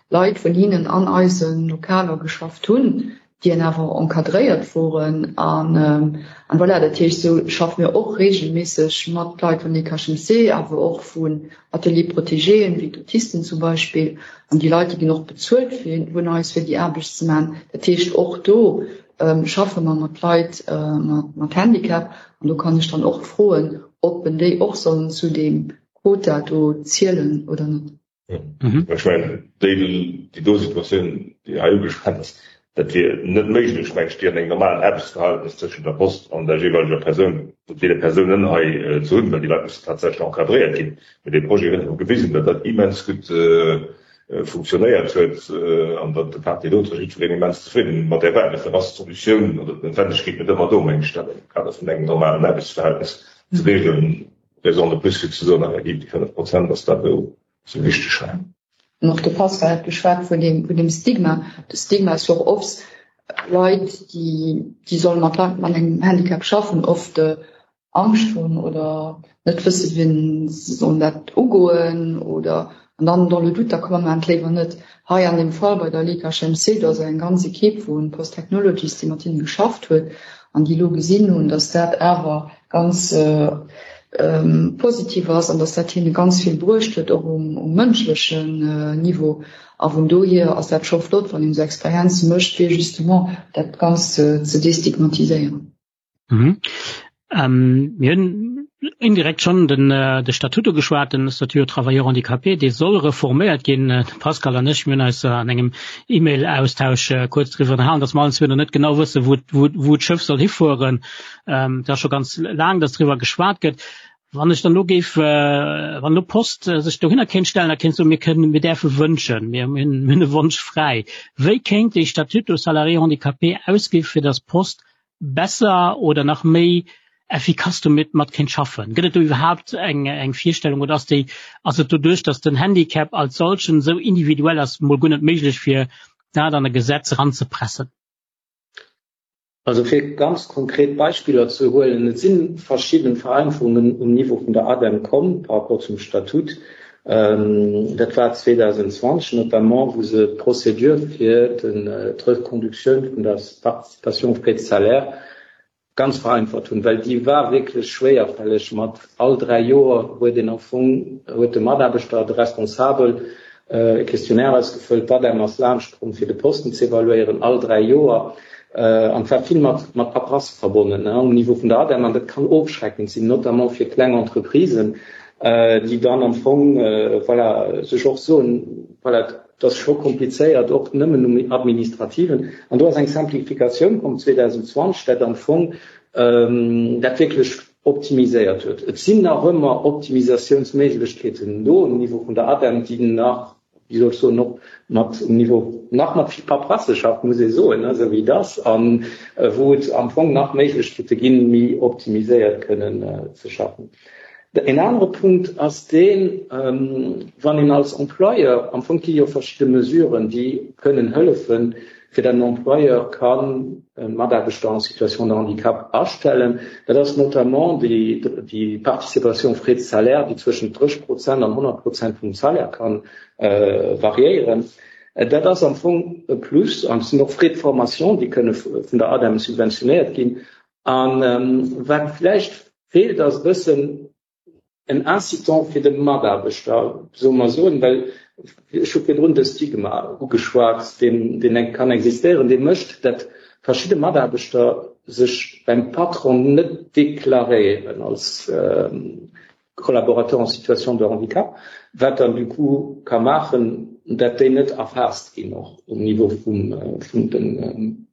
Leit vun hinnen an eise Lokaler geschafft hunn, déi awer encadréiert woren. An voilà, dat heescht, esou schaffe mir och reegelméisseg mat Leit vun Ligue HMC, awer och vun Ateliers protégéen, wéi d'Autisten zum Beispill. An déi Leit, déi ginn och bezuelt vun eis, fir déi Aarbecht ze maachen. Dat heescht, och do schaffe mer mat Leit mat Handicap. An do kann ech dann och froen, ob en déi och sollen zu deem Quota do zielen oder net. Ech mengen, déi do Situatioun, déi hei ugeschwat ass, Dat wier net méiglech, mengt ech, déi an engem normalen Aarbechtsverhältnis tëschent der Post an der jeeweileger Persoun, deene Persounen hei ze hunn, well déi Leit mussen tatsächlech encadréiert ginn. Mee dee Projet huet awer gewisen, datt dat immens gutt funktionéiert huet an datt de part et d'autre jiddwereen immens zefridden mat där war. Dofir ass d'Solutioun oder d'Noutwendegkeet net ëmmer do, meng ech, dat am Kader vun engem normalen Aarbechtsverhältnis ze regeln. Raison de plus fir ze soen, effektiv déi 5 Prozent ass dat, wou se wichteg war. An och de Pascal hat geschwat vun deem, vun deem Stigma. De Stigma ass jo och oft Leit, déi, déi solle mat Leit mat engem Handicap schaffen, oft Angscht hunn oder net wësse wéi se sollen dat ugoen oder an dann dans le doute, da komm mer maachen et léiwer net. Hei an deem Fall bei der Ligue HMC, do ass eng ganz Equipe vu Post Technologies, déi mat hinne geschafft huet an déi elo gesinn hunn, datt dat awer ganz positiv ass an dass dat hinne ganz vill bruecht huet, och um mënschlechen Niveau. A vun dohier ass dat scho flott, wann een esou Experienze mécht, fir justement dat Ganzt ze destigmatiséieren. Mir hunn indirekt schonn den de Statut ugeschwat, den Statut aux travailleurs handicapés, dee soll reforméiert ginn. De Pascal an ech, mir hunn eis an engem E-Mail-Austausch kuerz driwwer ënnerhalen, dass mer allen zwee nach net genau wëssen, wou wou d'Schëff soll hifueren. Et ass scho ganz laang, dass driwwer geschwat gëtt. Wann ech dann elo géif, wann elo d'Post sech dohinner kéint stellen a kéint soen, mir kënnen, mir däerfe wënschen, mir hunn e Wonsch fräi, wéi kéint dee Statut aux salariés handicapés ausgi fir dass d'Post besser oder nach méi effikass domat mat kéint schaffen? Gëtt et do iwwerhaapt eng, eng Virstellung oder ass déi, ass et doduerch, dass den Handicap als solchen esou individuell ass, mol guer net méiglech fir dat an e Gesetz eranzepressen? Also fir ganz konkret Beispiller ze huelen, Et si verschidde Vereinfachungen um Niveau vun der ADEM komm par rapport zum Statut. Dat war 2020 notamment, wou se d'Procédure fir d'Reconductioun vun der Participation aux frais de salaire ganz vereinfacht hunn, well déi war wierklech schwéierfälleg. Mat all dräi Joer huet een am Fong, huet de Mataarbechter, de Responsabel e Questionnaire ausgefëllt, d'ADEM ass laanscht komm fir de Posten ze evaluéieren, all 3 Joer, an et war vill mat mat Paperasse verbonnen um Niveau vun der ADEM an dat kann ofschreckend sinn, notamment fir kleng Entreprisen, déi dann am Fong, voilà, sech och soen, voilà, et ass scho komplizéiert, och nëmmen um Administrativen. An do ass eng Simplificatioun komm 2020, dat am Fong dat wierklech optimiséiert huet. Et sinn nach ëmmer Optimisatiounsméiglechkeeten do um Niveau vun der ADEM, déi nach, wéi soll ech soen, och mat um Niveau nach mat vill Paperasse schafft, muss ee soen, esou wéi et ass, a wou et am Fong nach Méiglechkeete ginn, méi optimiséiert kënnen ze schaffen. En anere Punkt ass deen, wann een als Employeur, am Fong gi jo verschidde Mesuren, déi kënnen hëllefen, fir datt en Employeur kann e Mataarbechter en situation de handicap astellen. Dat ass notamment déi Participation aux frais de salaire, déi zwëschent 30 Prozent an 100 Prozent vum Salaire ka variéieren. Dat ass am Fong e Plus an et sinn och Frais de formation, déi kënne vun der ADEM subventionéiert ginn. A wat vläicht feelt, ass e bëssen en Incitant fir de Mataarbechter, soe mer soen, well ech hu virdrun de Stigma ugeschwat, deen deen kann existéieren, dee mécht, dat verschidde Mataarbechter sech beim Patron net deklaréieren als Collaborateur en situation de handicap, wat dann du coup ka maachen, dat déi net erfaasst ginn och um Niveau vum vun den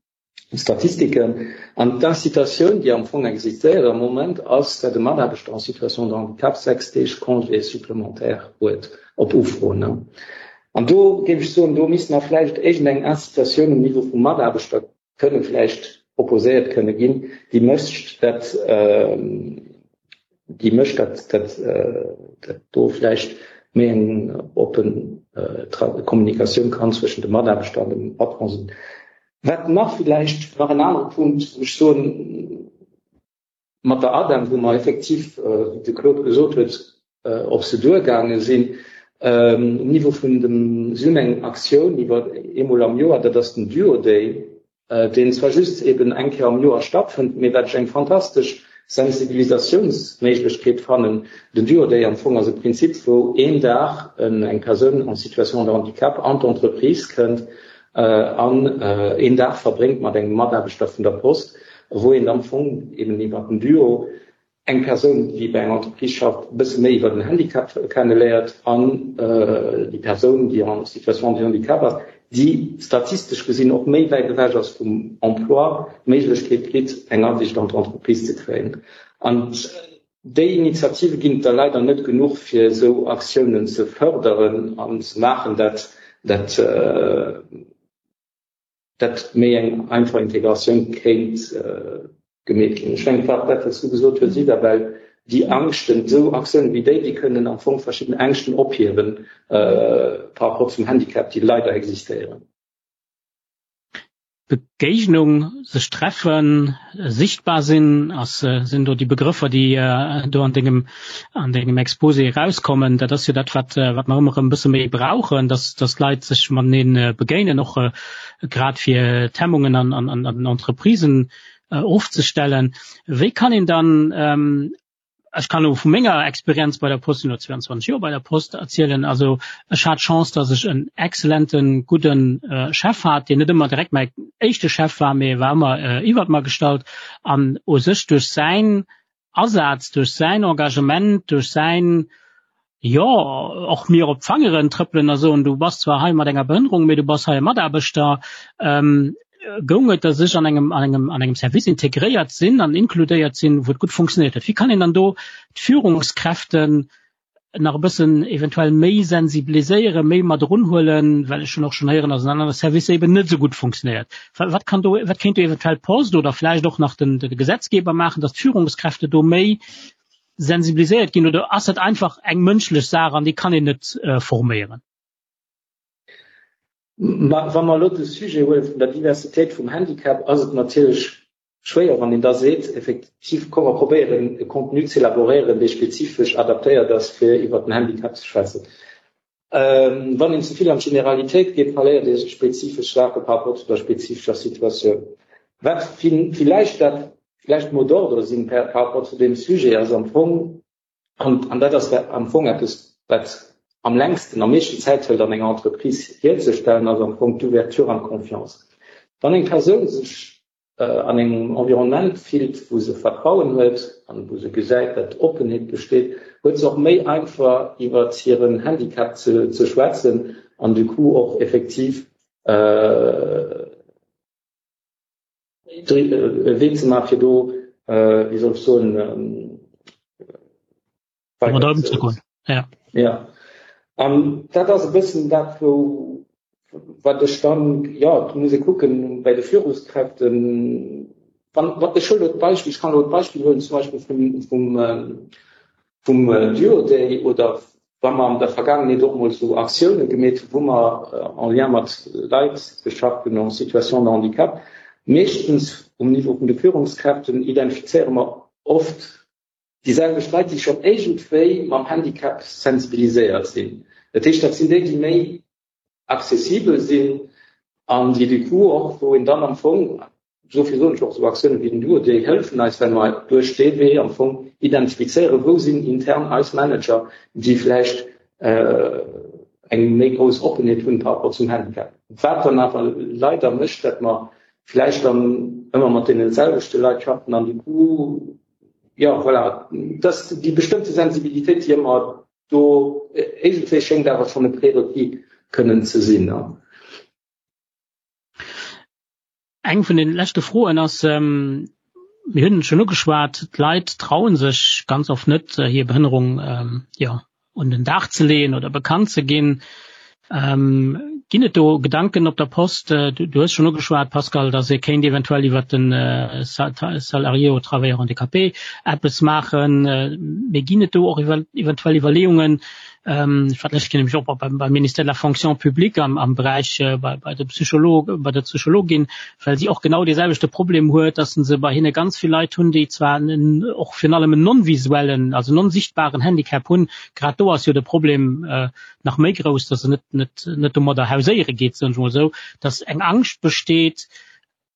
Statistiken. An d'Incitatioun, déi am Fong existéiert am Moment, ass, dat e Mataarbechter en situation de handicap 6 Deeg Congé supplémentaire huet op Ufro. An do géif ech soen, do misst nach vläicht iergendeng Incitatioun um Niveau vum Mataarbechter kënne vläicht proposéiert kënne ginn, déi mécht, dat déi mécht, dat dat dat do vläicht méi eng oppen Kommunikatioun kann zwëschen dem Mataarbechter an dem Patron sinn. Wat nach villäicht nach en anere Punkt, wou ech soen, mat der ADEM, wou mer effektiv, wéi de Claude gesot huet, op se duergaange sinn, um Niveau vun dem, si hunn eng Aktioun iwwer eemol am Joer, dat ass den Duo Day, deen zwar just eben eng Kéier am Joer stattfënnt, mee wat ech eng fantastesch Sensibilisatiounsméiglechkeet fannen. Den Duo Day am Fong ass e Prinzip, wou een Dag eng Persoun en situation de handicap an d'Entreprise kënnt an een Dag verbréngt mat engem Mataarbechter vun der Post, wou een am Fong eben iwwer den Duo eng Persoun, déi bei enger Entreprise schafft, e bësse méi iwwer den Handicap kenneléiert an déi Persoun, déi en situation de handicap ass, déi statistesch gesinn och méi wäit ewech ass vum Emploi, d'Méiglechkeet kritt, eng Asiicht an d'Entreprise ze kréien. An déi Initiative ginn et der leider net genuch, fir esou Aktiounen ze fërderen an ze maachen, dat dat dat méi eng einfach Integratioun kéint gemeet ginn. Ech mengen, dat, wat s du gesot hues, Isabel, déi Angschten, esou Aktiounen wéi déi, déi kënnen am Fong verschidden Ängschten ophiewen par rapport zum Handicap, déi leider existéieren. Begéignung, sech treffen, sichtbar sinn, ass, sinn do déi Begrëffer, déi do an dengem, an dengem Exposé erauskommen. Dat ass jo dat, wat, wat mer ëmmer erëm e bësse méi brauchen, dass, dass d'Leit sech matenee begéinen, och grad fir d'Hemmungen an, an, an den Entreprisen ofzestellen. Wéi kann een dann, ech kann elo vu menger Experienz bei der Post, sinn elo 22 Joer bei der Post, erzielen, also ech hat d'Chance, datt ech en exzellenten, gudden Chef hat, deen net ëmmer direkt mäi éischte Chef war, mee e war ëmmer iwwert mer gestallt an u sech duerch säin Asaz, duerch säin Engagement, duerch säin, jo, och mir op d'Fangeren trëppelen a soen, du bass zwar hei mat enger Behënnerung, mee du bass hei e Mataarbechter, goung et, datt ech an engem, an engem, an engem Service integréiert sinn an inkludéiert sinn, wou et gutt funktionéiert huet. Wéi kann een dann do d'Führungskräften nach e bëssen eventuell méi sensibiliséieren, méi mat erunhuelen, well ech hunn och schonn héieren, datt an anere Servicer eben net esou gutt funktionéiert. Wat kann do, wat kéint do eventuell d'Post oder vläicht och nach den, de Gesetzgeber maachen, datt d'Führungskräfte do méi sensibiliséiert ginn oder ass dat einfach eng mënschlech Saach an déi kann een net forméieren? Wa mer elo de Sujet huele vun der Diversitéit vum Handicap, ass et natierlech schwéier, wann een da seet, effektiv, komm mer probéieren e Contenu ze elaboréieren, dee spezifesch adaptéiert ass, fir iwwert den Handicap ze schwätzen. Wann een ze vill an d'Generalitéit geet, verléiert ee spezifesch Saache par rapport zu der spezifescher Situatioun. Wat villäicht dat vläicht Mot d'ordre sinn par rapport zu deem Sujet, ass am Fong, an dat ass am Fong eppes, wat am längsten, am meeschten Zäit hëlt an enger Entreprise hierzestellen, ass am Fong d'Ouverture an d'Confiance. Wann eng Persoun sech an engem Environnement fillt, wou se Vertrauen huet an wou se gesäit, datt Oppenheet besteet, huet se och méi einfach iwwer hiren Handicap ze schwätzen an du coup och effektiv e Wee ze maachen, fir do, wéi soll ech soen, weider ze goen. Ja. Ja. An dat ass e bëssen dat, wou, wat ech dann, jo, et muss ee kucken bei de Führungskräften, wann, wann, ech huelen elo d'Beispill, ech kann elo d'Beispill huelen zum Beispill vum, vum, vum Duo Day oder wa mer an der Vergaangenheet och mol esou Aktioune gemeet hunn, wou mer en lien mat Leit geschafft hunn en situation de handicap, meeschtens um Niveau vun de Führungskräften identifizéiere mer oft déi selwecht Leit, déi schonn iergendwéi mam Handicap sensibiliséiert sinn. Dat heescht, dat sinn déi, déi méi. accessibel sinn an déi du coup och, wou een dann am Fong, dofir soen ech och, esou Aktiounen wéi den Duo, déi hëllefen eis, well mer duerch dee Wee am Fong identifizéieren, wou sinn intern eis Manager, déi vläicht eng méi grouss Oppenheet hunn par rapport zum Handicap. Wat dann awer leider mécht, datt mer vläicht dann ëmmer mat deene selwechte Leit schaffen an du coup, jo, voilà, dass déi bestëmmte Sensibilitéit, déi ëmmer do iergendwéi schéngt awer schonn e Prérequis kënnen ze sinn. Eng vun den leschte Froen ass, mir hunn et schonn ugeschwat, d'Leit traue sech ganz oft net, hir Behënnerung jo, un den Dag ze leeën oder bekannt ze ginn. Ginn et do Gedanken op der Post? Du hues schonn ugeschwat, Pascal, datt ee kéint eventuell iwwert de Salarié au travailleur handicapé eppes maachen. Mee ginn et do och eventuell Iwwerleeungen, ech war d'lescht Kéier nämlech och beim Ministère de la Fonction publique am Beräich bei de Psycholog, bei der Psychologin, well si och genau dee selwechte Problem huet, datt se bei hinne ganz vill Leit hunn, déi zwar och virun allem en non-visuellen, also non-sichtbaren Handicap hunn. Grad do ass jo de Problem nach méi grouss, dass se net, net, net domadder hauséiere geet, soen ech mol esou, dass eng Angscht besteet,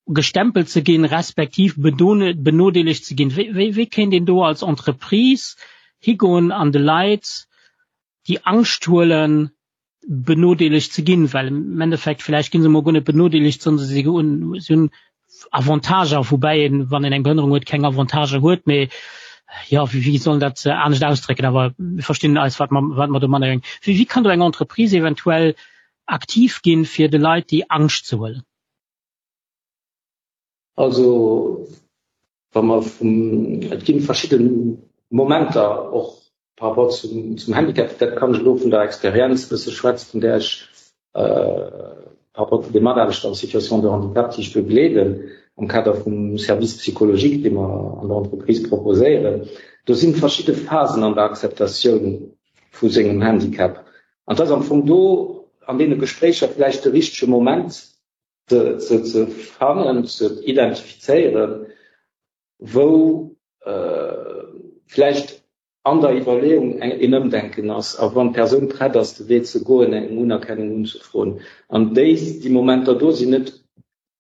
gestempelt ze ginn, respektiv benodeelegt ze ginn. Wéi, wéi, wéi kéint een do als Entreprise higoen an de Leit déi Angscht huelen, benodeelegt ze ginn? Well am Endeffekt vläicht gi se emol guer net benodeelegt, sondern si hunn Avantager, woubäi een, wann een eng Behënnerung huet, keng Avantager huet, mee jo, wéi wéi soll een dat anescht ausdrécken, awer mir verstinn eis, wat mer wat mer domadder mengen. Wéi wéi kann do eng Entreprise eventuell aktiv ginn, fir de Leit déi Angscht ze huelen? Also wa mer vum, et gi verschidde Momenter och par rapport zum, zum Handicap, dat kann ech elo vun der Experienz e bësse schwätzen, vun där ech par rapport zu de Mataarbechter en situation de handicap, déi ech begleeden am Kader vum Service psychologique, dee mer an der Entreprise proposéieren. Do si verschidde Phasen an der Akzeptatioun vu sengem Handicap. An et ass am Fong do an deene Gespréicher vläicht de richtege Moment ze, ze, ze fannen, ze identifizéieren, wou vläicht an der Iwwerleeung een Ëmdenken ass a wann d'Persoun prett ass, de Wee ze goen, eng Unerkennung unzefroen. An déi, déi Momenter do sinn net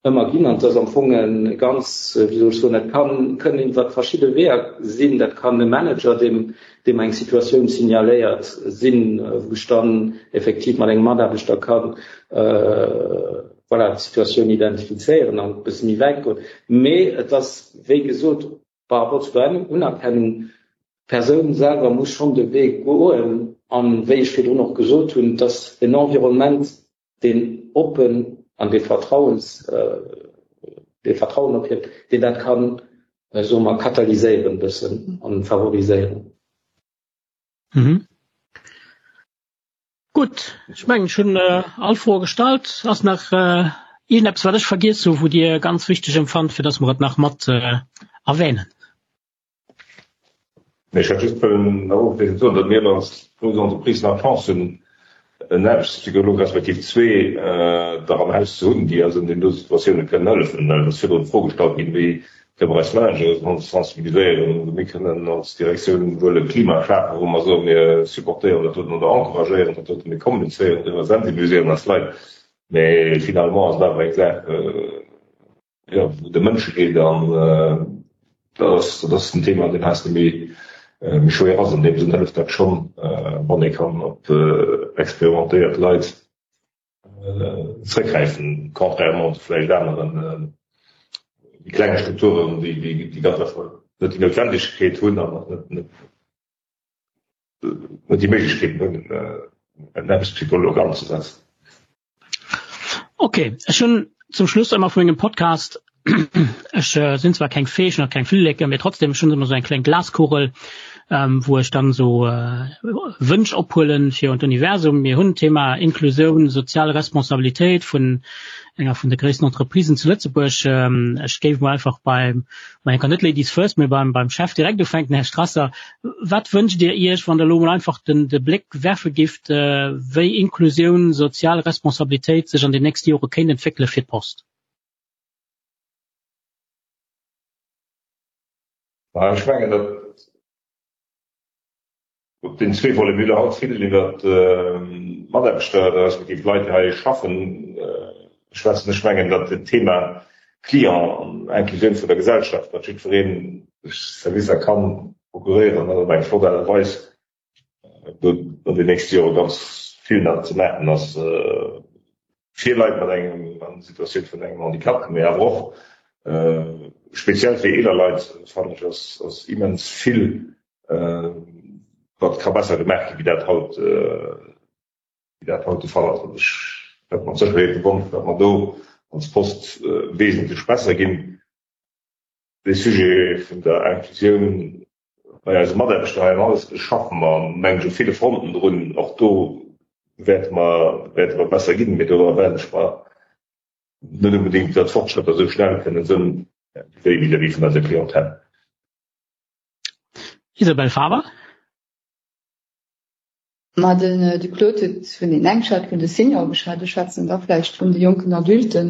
ëmmer ginn an et ass am Fong e ganz, wéi soll ech soen, dat kann, kënnen iwwer verschidde Weeër sinn. Dat kann e Manager, deem, deem eng Situatioun signaléiert, sinn, wou ech dann effektiv mat engem Mataarbechter kann, voilà, d'Situatioun identifizéieren an e bësse méi wäit goen. Mee et ass, wéi gesot, par rapport zu der Unerkennung, d'Persoun selwer muss schonn de Wee goen. An, wéi ech virdrun och gesot hunn, et ass en Environnement, deen oppen an dee Vertrauens, dee Vertrauen ophieft, deen dat kann, soe mer, katalyséieren e bëssen an favoriséieren. Gutt, ech mengen ech hunn all Froe gestallt. Ass nach iergendeppes wat ech vergiess hu wou Dir ganz wichteg empfannt fir datt mer et nach mat erwähnen? Nee, ech hätt just wëllen nach ofschléissend soen, datt mir als grouss Entreprise nach d'Chance hunn en Aarbechtspsycholog respektiv zwee der am Haus ze hunn, déi eis an deenen do Situatioune kënnen hëllefen. Well et ass virdrun d'Fro gestallt ginn, wéi Kënne mer eis Managere sensibiliséieren? Mir kënnen als Direktioun wuel e Klima schafen, wou mer soen, mir supportéieren dat doten oder encouragéieren dat doten, mir kommunizéieren driwwer, sensibiliséieren eis Leit. Mee finalement ass et awer eng Saach, jo, wou et ëm Mënsche geet an dat ass, dat ass en Thema, deen heiansdo méi, méi schwéier ass. An deem Sënn hëlleft dat schonn, wann ee kann op experimentéiert Leit zréckgräifen, contrairement zu vläicht aneren méi klenge Strukturen, déi déi ganz einfach net déi Noutwendegkeet hunn an och net net déi Méiglechkeeten hunn, en Aarbechtspsycholog anzesetzen. Ok, ech hunn zum Schluss ëmmer vu mengem Podcast, ech sinn zwar keng Fee, ech hunn och keng Flilleke, mee trotzdem, ech hunn ëmmer esou eng kleng Glaskugel, wou ech dann esou Wënsch ophuelen fir un d'Universum. Mir hunn d'Thema Inklusioun, sozial Responsabilitéit vun enger vun de gréissten Entreprisen zu Lëtzebuerg. Ech géif mol einfach beim, ma eng kann net Ladies first, mee beim beim Chef direkt ufänken, Här Strasser. Wat wënscht Dir Iech, wann Der elo mol einfach den de Bléck werfe gifft, wéi Inklusioun, sozial Responsabilitéit sech an den nächste Jore kéint entwéckele fir d'Post? Ech mengen, datt. Op den zwee Volet. Mir hu haut vill iwwer d'Mataarbechter, respektiv d'Leit, déi hei schaffen, schwätzen. Ech mengen, datt den Thema Client an Inclusioun vun der Gesellschaft, datt jiddweree sech Servicer ka procuréieren, dat op eng flott Aart a Weis, do an den nächste Jore ganz vill nach ze maachen ass fir Leit mat engem an Situatioun vun engem Handicap, mee awer och speziell fir eeler Leit, fannen ech, ass immens vill wat ka besser gemaach ginn, wéi dat haut, wéi dat haut de Fall ass. An ech hätt mat Sécherheet de Wonsch, datt mer do als Post wesentlech besser ginn. De Sujet vun der Inklusioun bei eise Mataarbechter hei am Haus schaffe mer, mengen ech, op ville Fronten drun. Och do wäerte mer, wäerte mer besser ginn, mee do erwaarden ech mer net onbedéngt, datt d'Fortschrëtter esou schnell kënnen sënn wéi vis-à-vis vun eiser Clientèle. Isabelle Faber. Ma den de Claude huet vun den eng geschwat, vun de Seniore geschwat, ech schwätzen da vläicht vun de jonken Adulten.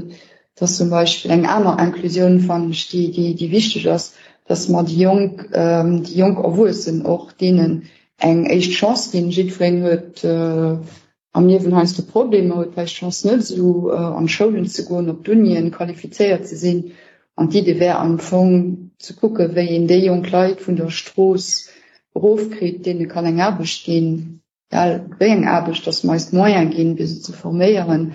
Dat ass zum Beispill eng aner Inclusioun, fannen ech, déi, déi, déi wichteg ass, dass mer déi jonk, déi jonk Erwuessen och deenen eng éischt Chance ginn. Jiddwereen huet am Liewen heiansdo Problemer, huet vläicht d'Chance net esou an d'Schoulen ze goen, op d'Unien, qualifizéiert ze sinn. An d'Idee wär am Fong ze kucken, wéi een déi jonk Leit vun der Strooss erofkritt, deene kann eng Aarbecht ginn, egal wéi eng Aarbecht, datt mer eis d'Moyene ginn, fir se ze forméieren,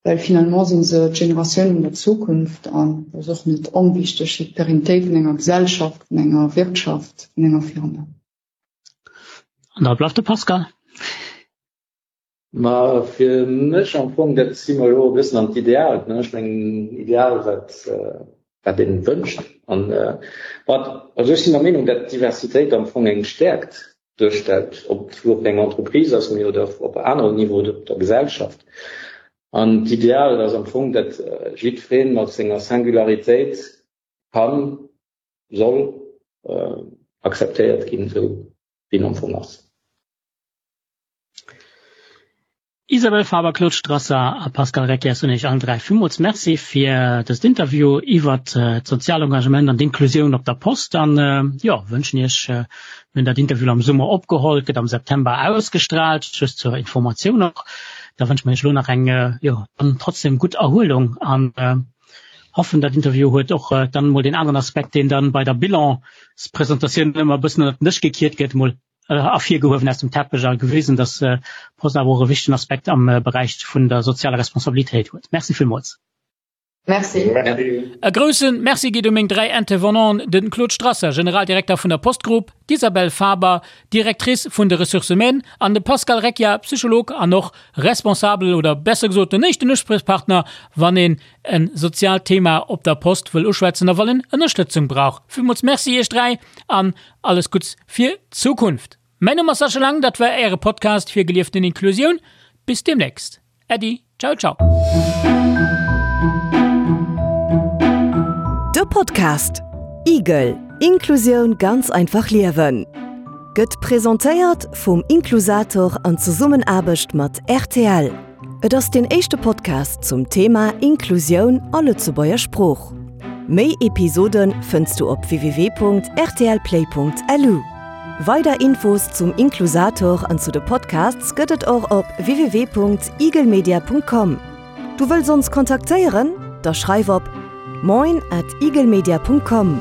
well finalement si se d'Generatioun vun der Zukunft an dat ass och net onwichteg fir d'Pérennitéit vun enger Gesellschaft, vun enger Wirtschaft, vun enger Firma. An da bleift de Pascal. Ma fir mech am Fong, dat si mer elo e bëssen an d'Ideal, ne? Ech mengen, Ideal, wat, wat een wënscht. An wat, also ech sinn der Meenung, dat d'Diversitéit am Fong eng Stäerkt duerstellt, ob et elo op enger Entreprise ass, mee oder op aneren Niveau oder op der Gesellschaft. An d'Ideal ass am Fong, dat jiddwereen mat senger Singularitéit kann, soll akzeptéiert ginn, esou wéi en am Fong ass. Isabelle Faber, Claude Strasser a Pascal Reckias soen Iech allen 3 villmools Merci fir dëst Interview iwwert d'sozial Engagement an d'Inklusioun op der Post an jo, wënschen Iech, mir hunn dat Interview am Summer opgeholl, et gëtt am September ausgestrahlt, just zur Informatioun och, da wënsche mer Iech elo nach eng jo dann trotzdem gutt Erhuelung an hoffen dat Interview huet och dann mol deen aneren Aspekt, deen dann bei der Bilanspresentatioun ëmmer e bëssen ënnert den Dësch gekiert gëtt, mol ervirgehuewen aus dem Teppech a gewisen, dass d'Post awer och e wichtegen Aspekt am Beräich vun der sozialer Responsabilitéit huet. Merci villmools. Merci. E grousse Merci geet u meng 3 Intervenanten, de Claude Strasser, Generaldirekter vun der Post Group, d'Isabelle Faber, Directrice vun de Ressources humaines, an de Pascal Recchia, Psycholog an och Responsabel oder besser gesot den éischten Uspriechpartner, wann een en soziaalt Thema op der Post wëll uschwätzen a wann en Ënnerstëtzung brauch. Villmools Merci iech 3 an alles Gutts fir d'Zukunft. Mäin Numm ass Sascha Lang, dat war äre Podcast fir gelieften Inklusioun. Bis demnächst. Äddi, ciao ciao. De Podcast Igel, Inklusioun ganz einfach liewen gëtt presentéiert vum Inklusator an Zesummenaarbecht mat rtl. Et ass deen éischte Podcast zum Thema Inklusioun a Lëtzebuerger Sprooch. Méi Episode fënns du op www.rtlplay.lu. Weider Infos zum Inklusator an zu de Podcasts gëtt et och op www.igelmedia.com. Du wëlls ons kontaktéieren? Da schreif op moin at igelmedia.com.